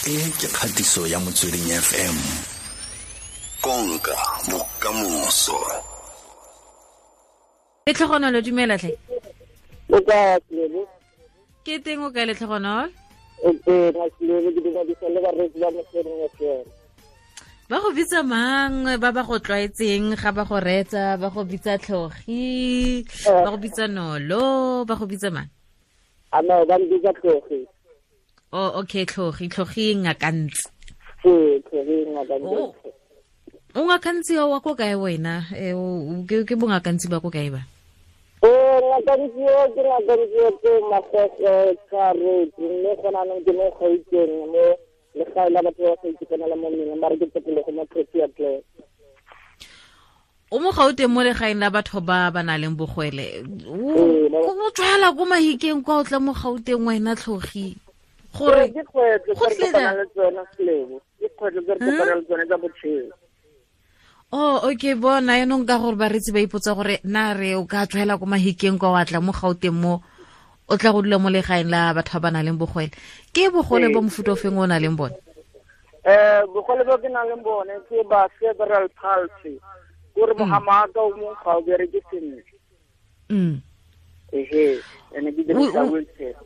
E ke kgatiso ya Motsweding FM. Konka bokamoso. Letlhogonolo, dumela tlhe. O ka Tlebo? Ke teng, o kae, Letlhogonolo? O teng, Tlebo, ke dumedisa le bareetsi ba Motsweding FM. Ba go bitsa mang ba ba go tlwaetseng ga ba go reetsa? Ba go bitsa Tlhogi, ba go bitsa Nolo, ba go bitsa mang? A no, ba mbitsa Tlhogi. Oh, okay, Tlhogi, Tlhogi Ngakantsi. Ee, Tlhogi Ngakantsi. O Ngakantsi wa ko kae wena? Ke bongakantsi ba ko kae ba? Ee, Ngakantsi o ke Ngakantsi o ke Magogo Tshwaretse, mme gona anong ke mo Gauteng, mo legae la batho ba ba sa itekanela mo mmeleng, ba re ke tokologo mo Protea Glen. O mo Gauteng mo legaeng la batho ba ba nang le bogwele. O tswala ko Mahikeng kwa, o tla mo Gauteng wena, Tlhogi, gore Ke kgwetlho tse re kopanang le tsone, Selebo, ke kgwetlho tse re kopanang le tsone tsa botshelo. Oh, okay, bona yaanong ka gore baretsi ba ipotsa gore na re o ka tswela ko Mahikeng kwa, wa tla mo Gauteng mo, o tla go dula mo legaeng la batho ba ba nang le bogwele. Ke bogole bo mofuta o feng o nang le bone? Bogole bo ke nang le bone ke ba cerebral palsy, kore mogamaka o mongwe ga o bereke sentle. Ehe, ene ke dirisa wheelchair.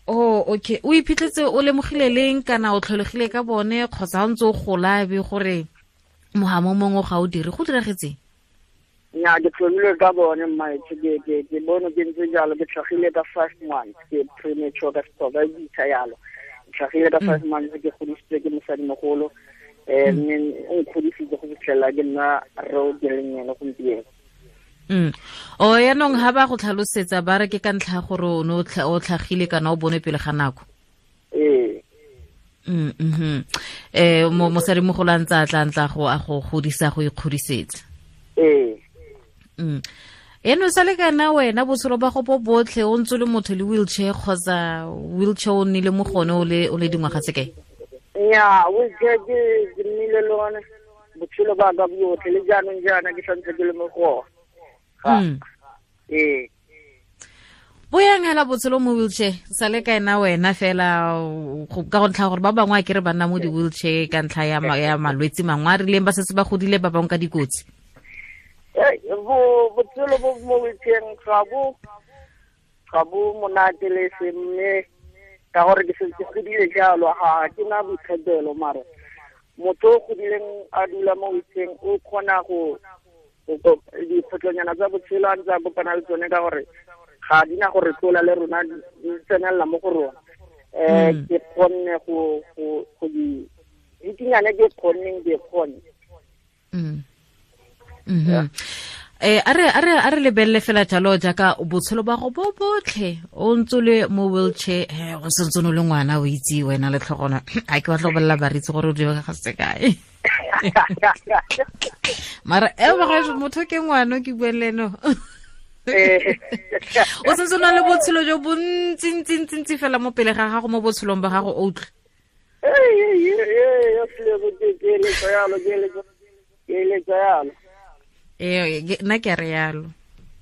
Oh, okay. O iphitlhetse o lemogile leng, kana o tlholegile ka bone, kgotsa o ntse o gola be gore mogamo mongwe ga o dire? Go diragetseng? Nya, ke tlholile ka bone, mmaetsho. Ke bone ke ntse jalo, ke tlhagile ka 5 months, ke premature ka Sexhosa e bitsa yalo. Ke tlhagile ka 5 months, ke godisitswe ke mosadimogolo, mme o nkgodisitse go fitlhelela ke nna re o ke leng ene gompieno. O yaanong ga ba go tlhalosetsa, ba re ke ka ntlha ya gore o ne o tlhagile kana o bone pele ga nako? Ee. Mo mosadimogolo a ntse a tla ntla go a go godisa, go ikgodisetsa? Ee. Eno sa le kana wena botshelo ba go bo botlhe o ntse le motho le wheelchair, kgotsa wheelchair o nnile mo gone o le dingwaga tse kae? Nya, wheelchair ke nnile le one botshelo ba ka botlhe, le jaanong jaana ke santse ke le mo go ona. Ee. Bo yang hela botshelo mo wheelchair sa le kaena wena fela, ka go ntlha gore ba bangwe a kere ba nna mo di-wheelchair ka ntlha ya malwetse mangwe a rileng, ba setse ba godile, ba bangwe ka dikotsi? Bo botshelo bo mo wheelchair ga bo monate le se, mme ka gore ke setse ke godile jalo, ga ke na boikgethelo. Mare motho o godileng a dula mo wheelchair o kgona go dikgwetlhonyana tsa botshelo a ntse a kopana le tsone, ka gore ga di na gore tlola le rona, di tsenelela mo go rona. Ke kgonne go di dikinyane, ke kgonneng, ke kgonne. A re lebelele fela jalo jaaka botshelo ba go bo botlhe o ntse le mo wheelchair, go sentse o le ngwana, o itse wena le tlhogona a ke batla go bolelela baritse gore o dira ga se kae, mara e bagaetsho motho ke ngwana ke bue le eno, o sentse o na le botshelo jo bontsi ntsi ntsi ntsi fela mo pele ga gago mo botshelong ba gago, o utlwe. Ke eletsa yalo, ke eletsa yalo. Ee, nna ke a re yalo.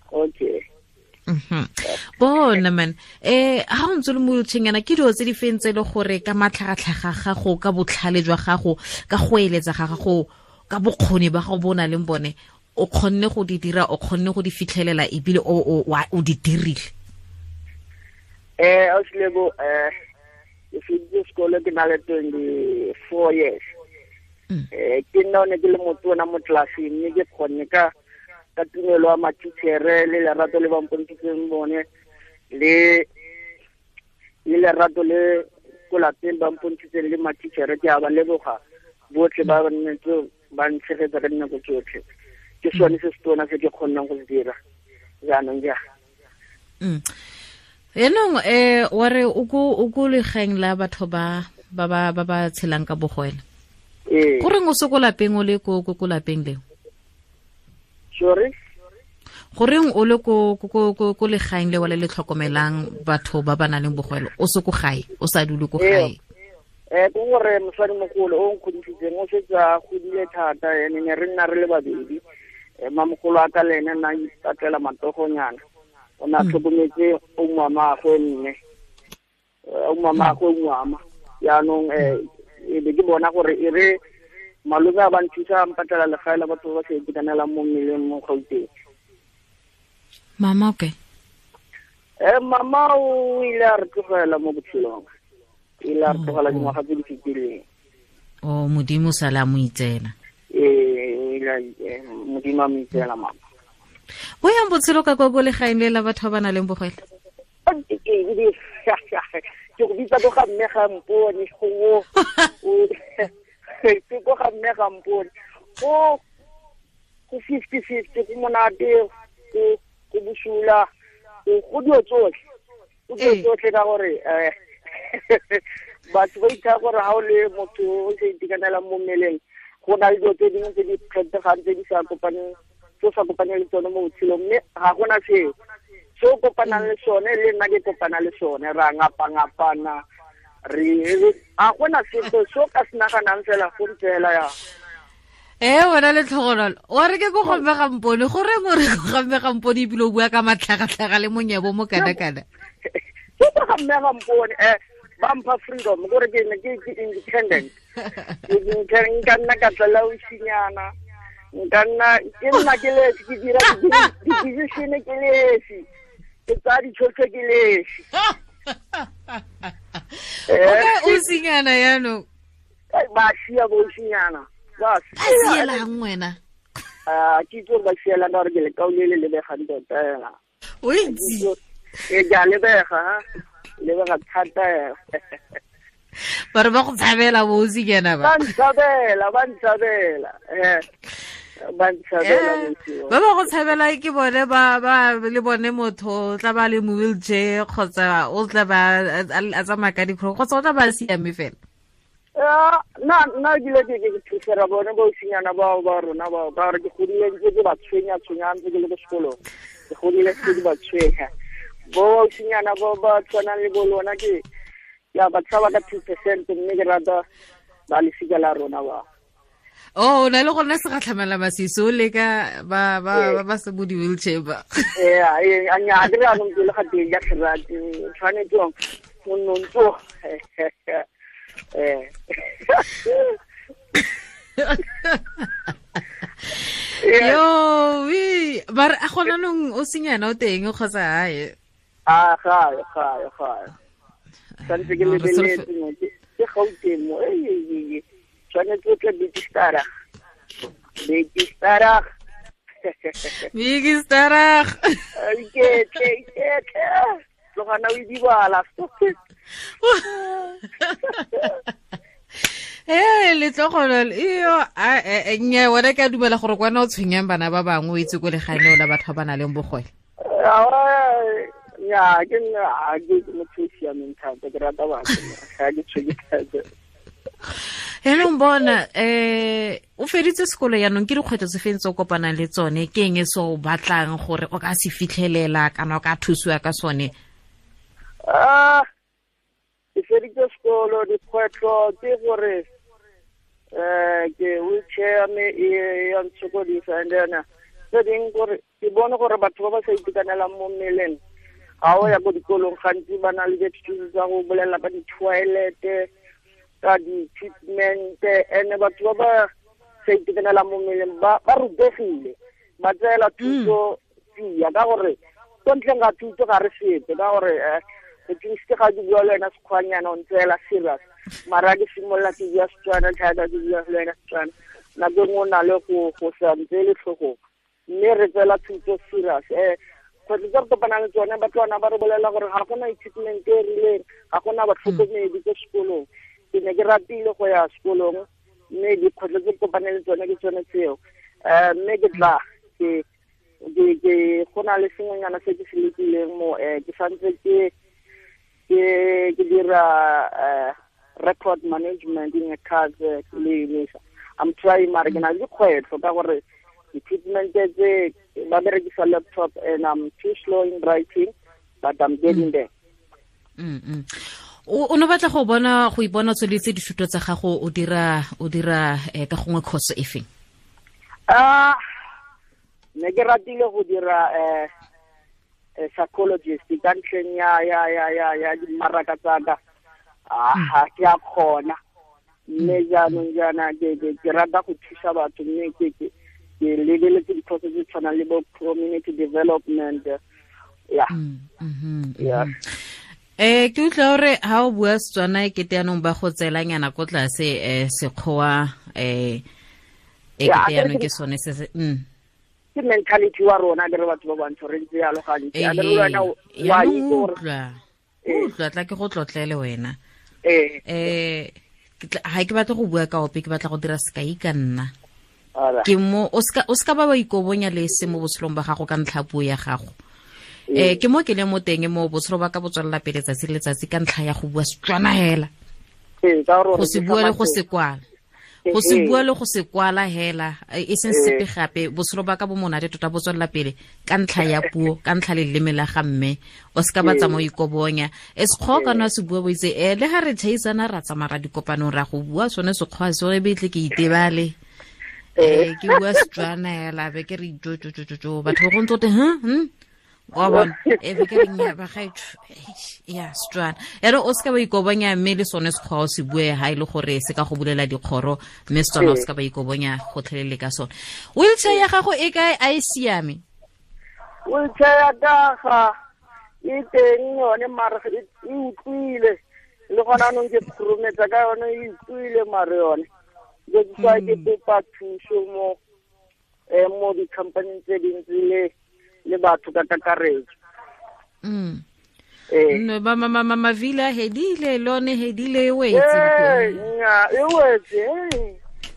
Okay. Bona man, ha o ntse le mo wheelchair yana, ke dilo tse di feng tse e le gore ka matlhagatlhaga gago, ka botlhale jwa gago, ka go eletsa ga gago, ka bokgoni ba gago bo o nang le bone, o kgonne go di dira, o kgonne go di fitlhelela, ebile o di dirile? Ausilebo, ke feditse sekolo ke na le 24 years. Ke nna o ne ke le motona mo tlelaseng, mme ke kgonne ka tumelo ya matitšhere le lerato le ba mpontshitseng bone, le lerato le ko lapeng ba mpontshitseng le matitšhere, ke a ba leboga botlhe ba nnetse ba ntshegetsa ka dinako tsotlhe. Ke sone se se tona se ke kgonnang go se dira jaanong ja. Yaanong wa re o ko legaeng la batho ba ba tshelang ka bogwele? Ee. Goreng o se ko lapeng, o le ko lapeng leo? Sorry? Goreng o le ko legaeng leo le le tlhokomelang batho ba ba nang le bogwele, o se ko gae, o sa dule ko gae? Ke gore mosadimogolo o nkgodisitseng o setse a godile thata, ene ne re nna re le babedi. Mamogolo a ka le ene nna ipatlela matogonyana, o ne a tlhokometse o mamagwe, mme o mamagwe ngwama. Yaanong E be ke bona gore e re malome a ba nthusa a mpatlela legae la batho ba ba sa itekanelang mo mmeleng mo Gauteng. Mama okay. Mama o ile a re tlogela mo botshelong. Ile a re tlogela dingwaga tse di fetileng. O Modimo sala mo itsela. Ile Modimo a mo itsela mama. Bo yang botshelo ka kwa ko legaeng le la batho ba ba nang le bogwele? Ke go bitsa ko ga mme ga mpone go ke ko ga mme ga mpone go 50-50 go monate go bosula go dilo tsotlhe go dilo tsotlhe ka gore batho ba itha gore ha o le motho o sa itekanelang mo mmeleng go na le dilo tse dingwe tse di kgethegang tse di sa kopaneng tse sa kopaneng le tsone mo botshelong mme ga gona seo se o kopanang le sone le nna ke kopana le sone ra ngapa-ngapana re ga gona sepe se o ka se naganang fela go ntse fela ya. Wena le tlhogonolo wa re ke ko gomme ga mpone goreng o re ko gamme ga mpone ebile o bua ka matlhagatlhaga le monyebo mo kana-kana ke ko gamme ga mpone ba mpha freedom gore ke ne ke independent nka nna ka tlela osinyana nka nna ke nna ke lesi ke dira di-decision ke lesi ke tsaya ditshwetso ke lesi. O ka osinyana yaanong ba sia bo osinyana ba sielang wena ke itse gore ba sielang ka gore ke lekau le le lebegang tota ela o itse ke a lebega lebega thata ba re ba go tshabela bo osinyana ba ntshabela ba ntshabela ba ntshabela ba ba go tshabela ke bone ba ba le bone motho o tla ba le mo wheelchair kgotsa o tla ba a tsamaya ka dikgoro kgotsa o tla ba siame fela. Nna ke ile ke thusera bone bo osinyana bao ba rona bao ka gore ke godile ntse ke ba tshwenya tshwenya ntse ke le ko sekolong ke godile ntse ke ba tshwenya bo osinyana bo ba tshwanang le bo lona ke ya ba tshaba ka 2% mme ke rata ba lesika la rona ba. Oh, o na le gona segatlhamela masisi o leka ba ba ba se bo di-wheelchair ba. Nya ke re anong ke le ga teng ya tlherate tshwanetse o nnontso Yo, we ba re a gona nong o senyana o teng kgotsa hae. A ga santse ke lebeletse mo ke Gauteng mo tshwanetse o tle Big Star. Iketle tlogana o idibala. Letlhogonolo iyo nnyaa wena ke a dumela gore kwana o tshwenyang bana ba bangwe o itse ko legaeneo la batho ba ba nang le bogole. Nnyaa ke nna ke motho o siameng thata ke rata batho ga ke tshwenye thata. Yaanong bona o feditse sekolo yaanong ke dikgwetlho tse feng tse o kopanang le tsone ke eng e se o batlang gore o ka se fitlhelela kana o ka thusiwa ka sone? Ke feditse sekolo dikgwetlho ke gore ke wheelchair me e ya ntshokodisa and then tse dingwe gore ke bone gore batho ba ba sa itekanelang mo mmeleng ga o ya ko dikolong gantsi ba na le di-excuse tsa go bolela ka di-toilet ka di-treatment and batho ba ba sa itekanelang mo mmeleng ba rutegile ba tseela thuto tsia ka gore ko ntleng ga thuto ga re sepe ka gore at least ga ke bua le wena sekgwanyana o ntseela serious mara ke simolola ke bua Setswana thata ke bua le wena Setswana nako e nngwe o na le go sa ntseele tlhogong mme re tseela thuto serious. Kgwetlho tse re kopanang le tsone batlwana ba re bolela gore ga gona equipment e rileng ga gona batlhokomedi ko sekolong. Ke ne ke ratile go ya sekolong mme dikgwetlho tse ke kopaneng le tsone ke tsone tseo. Mme ke tla ke go na le sengwenyana se ke se lekileng mo ke santse ke dira record management in a cars le Unisa. I'm trying mara ke na le dikgwetlho ka gore equipment tse ba berekisa laptop and I'm too slow in writing but I'm getting there. O no batla go bona go ipona tsweletse dithuto tsa gago o dira ka gongwe course e feng? Ne ke ratile go dira psychologist ka ntlheng ya dimaraka tsa ka. Ga ke a kgona Mme jaanong jaana ke rata go thusa batho, mme ke lebeletse dikhoso tse tshwanang le bo community development. Ya. Ya. Ke utlwa gore ha o bua Setswana e kete yanong ba go tseelanyana ko tlase Sekgowa e kete yanong ke sone se se Ke mentality wa rona ke re batho ba bantsho re ntse yalo gantsi. A re wena wa itse gore utlwa tla ke go tlotlele wena. Ha ke batla go bua ka ope, ke batla go dira sekai ka nna. Ke mo o ska ba ikobonya le se mo botshelong ba gago ka ntlha puo ya gago. Ke mo ke le mo teng mo botshelo ba ka botswella pele tsatsi le letsatsi ka ntlha ya go bua Setswana hela. Go se bua le go se kwala. Go se bua le go se kwala hela e seng sepe gape, botshelo ba ka bo monate tota bo tswella pele ka ntlha ya puo, ka ntlha le leleme la ga mme. O ska ba tsamaya ikobonya. E Sekgowa kana se bua bo itse le ha re thaisana ra tsamaya ra dikopanong ra go bua sone Sekgowa se re betle ke itebale. Ke bua Setswana hela be ke re jo jo jo jo batho go ntse wa bona e be ke re nya ba gaetsho ya Setswana. Ya re o ska ba ikobonya mme le sone Sekgowa o se bue ha ile gore se ka go bulela dikgoro, mme Setswana o ska ba ikobonya gotlhelele ka sone. Wheelchair ya gago e kae, a e siame? Wheelchair ya ka e teng yone mare e utlwile le gona anong ke khurumetsa ka yone e utlwile mare yone. Ke tswa ke kopa thuso mo mo di-company tse dintsi le batho ka kakaretso. No ba mama mavila hedile lone hedile e wetse. Nya e wetse.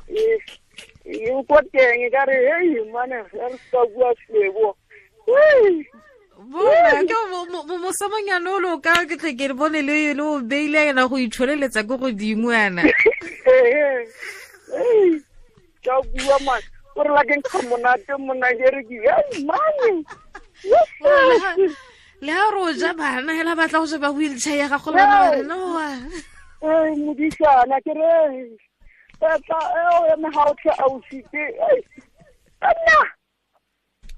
E ko teng ka re hey mane re sa bua slebo. Bona ke mo samanyana o lo ka ke tle ke bone le o beile ena go itsholeletsa go godimo yana. Ka bua man gore la ke nkga monate mona ke re ke hey mane. Le ha ro ja bana hela batla go sheba wheelchair ya gago lona re no wa. Modisana ke re tla e me ha o tla ausite. Nna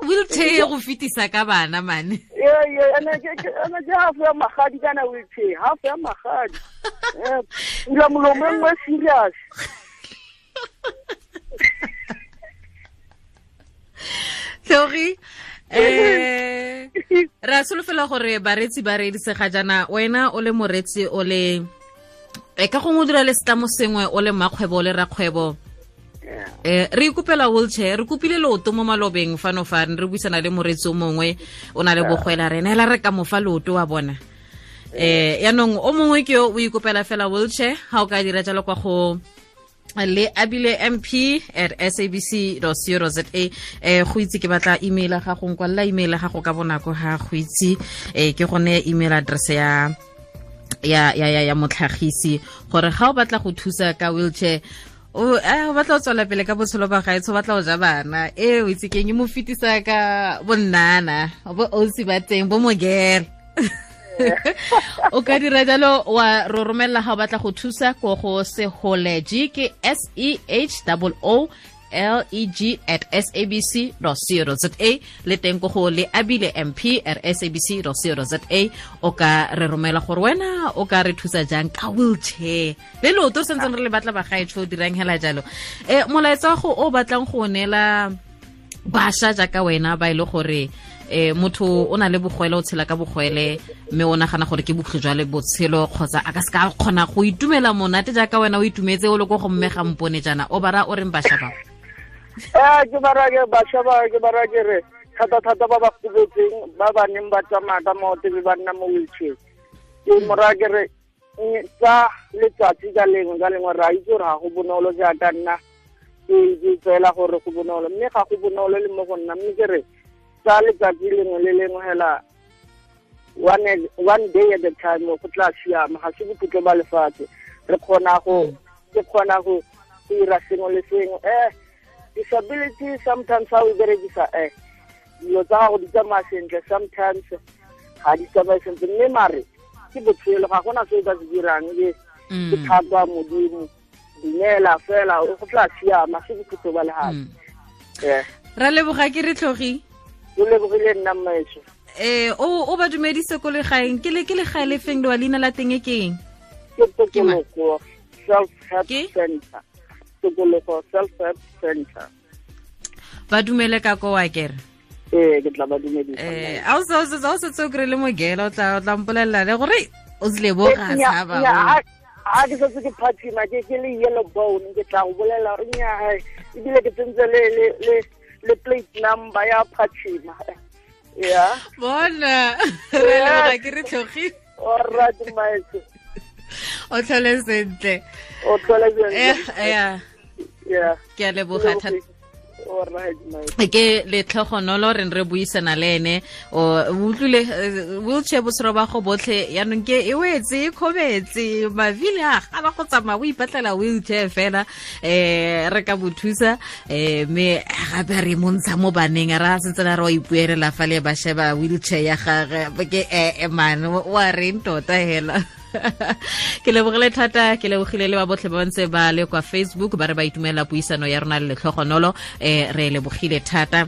wheelchair go fitisa ka bana mane. Ene ke half ya magadi kana wheelchair, half ya magadi. Ula molomo nngwe serious. Sorry. Ra solofela gore baretsi ba reeditse ga jaana, wena o le moretsi o le ka gongwe o dira le setlamo sengwe, o le mmakgwebo o le rakgwebo. Re ikopela wheelchair, re kopile leoto mo malobeng fano fa re buisana le moretsi o mongwe o na le bogwela rena hela re ka mofa leoto wa bona. Yaanong o mongwe ke yo o ikopela fela wheelchair, ha o ka dira jalo kwa go le abile mp@sabc.co.za. Go itse ke batla email ga go nkwalla email ga go ka bonako ha go itse ke gone email address ya ya ya ya motlhagisi gore ga o batla go thusa ka wheelchair o batla go tswela pele ka botshelo ba gaetsho, batla go ja bana o itse keng e mo fetisa ka bonnana bo ausi ba teng bo mogere. O ka dira jalo wa ro romella ga o batla go thusa ko go seholeg ke SEHOOLEG@sabc.co.za le teng ko go le abile mp@sabc.co.za. O ka re romela gore wena o ka re thusa jang ka wheelchair le leoto re santseng re le batla bagaetsho o dirang hela jalo. Molaetsa go o batlang go neela bašwa jaaka wena ba ile gore motho o na le bogwele, o tshela ka bogwele mme o nagana gore ke bokhutlo jwa le botshelo kgotsa a ka se ka kgona go itumela monate jaaka wena o itumetse o le ko go mme ga mpone jaana, o bara o reng bašwa ba? Ke bara ke bašwa ba, ke bara ke re thata thata ba ba gobetseng ba ba neng ba tsamaya ka maoto be ba nna mo wheelchair. Ke mora ke re tsa letsatsi ka lengwe ka lengwe ra itse gore ga go bonolo jaaka nna ke tseela gore go bonolo, mme ga go bonolo le mo go nna, mme ke re tsa letsatsi lengwe le lengwe hela one day at a time go tla siama, ga se bokhutlo ba lefatshe. Re kgona go ke kgona go dira sengwe le sengwe. Disability sometimes ha o berekisa dilo tsa gago di tsamaya sentle, sometimes ga di tsamaye sentle, mme mare ke botshelo, ga gona se o ka se dirang, ke thato ya Modimo, dumela fela go tla siama, se bokhutlo ba lefatshe. Ra leboga ke re tlhogi. O lebogile nna mmaetsho. O ba dumedise ko legaeng, ke le ke legae le feng le wa leina la teng e keng? Ke Tokologo. Self Help Center. Tokologo Self Help Center. Ba dumele ka ko wa kere? Ee, ke tla ba dumedisa. A o setse o kry-ile mogela, o tla mpolelela le gore o tsile bo ga tshaba. A ke setse ke phathima, ke le yellow bone, ke tla go bolela gore nnyaa, ebile ke tsentse le plate number ya phathima. Yeah. Bona, re leboga ke re tlhogile. Alright, maestro. O tlhole sentle. O tlhole sentle. Yeah. Yeah. Ke a leboga thata. Ke letlhogonolo re re buisana le ene, o utlwile wheelchair botshelo ba go botlhe, yaanong ke e wetse e kgobetse mavile a gana go tsamaya, o ipatlela wheelchair fela. Re ka bo thusa, mme gape re montsha mo baneng, ra sentse re wa ipuelela fa le ba sheba wheelchair ya gage ke man wa reng tota hela. Ke lebogile thata, ke lebogile le ba botlhe ba ntse ba le kwa Facebook ba re ba itumela puisano ya rona le letlhogonolo. Re lebogile thata,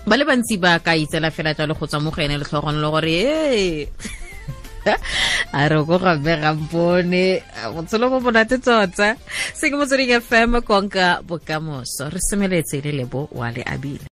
ba le bantsi ba ka itsela fela jalo go tswa mo go ene letlhogonolo gore ee a re ko gape gampone botshelo bo monate tota. Se ke Motsweding FM, konka bokamoso. Re semeletse le Lebo wa le abile.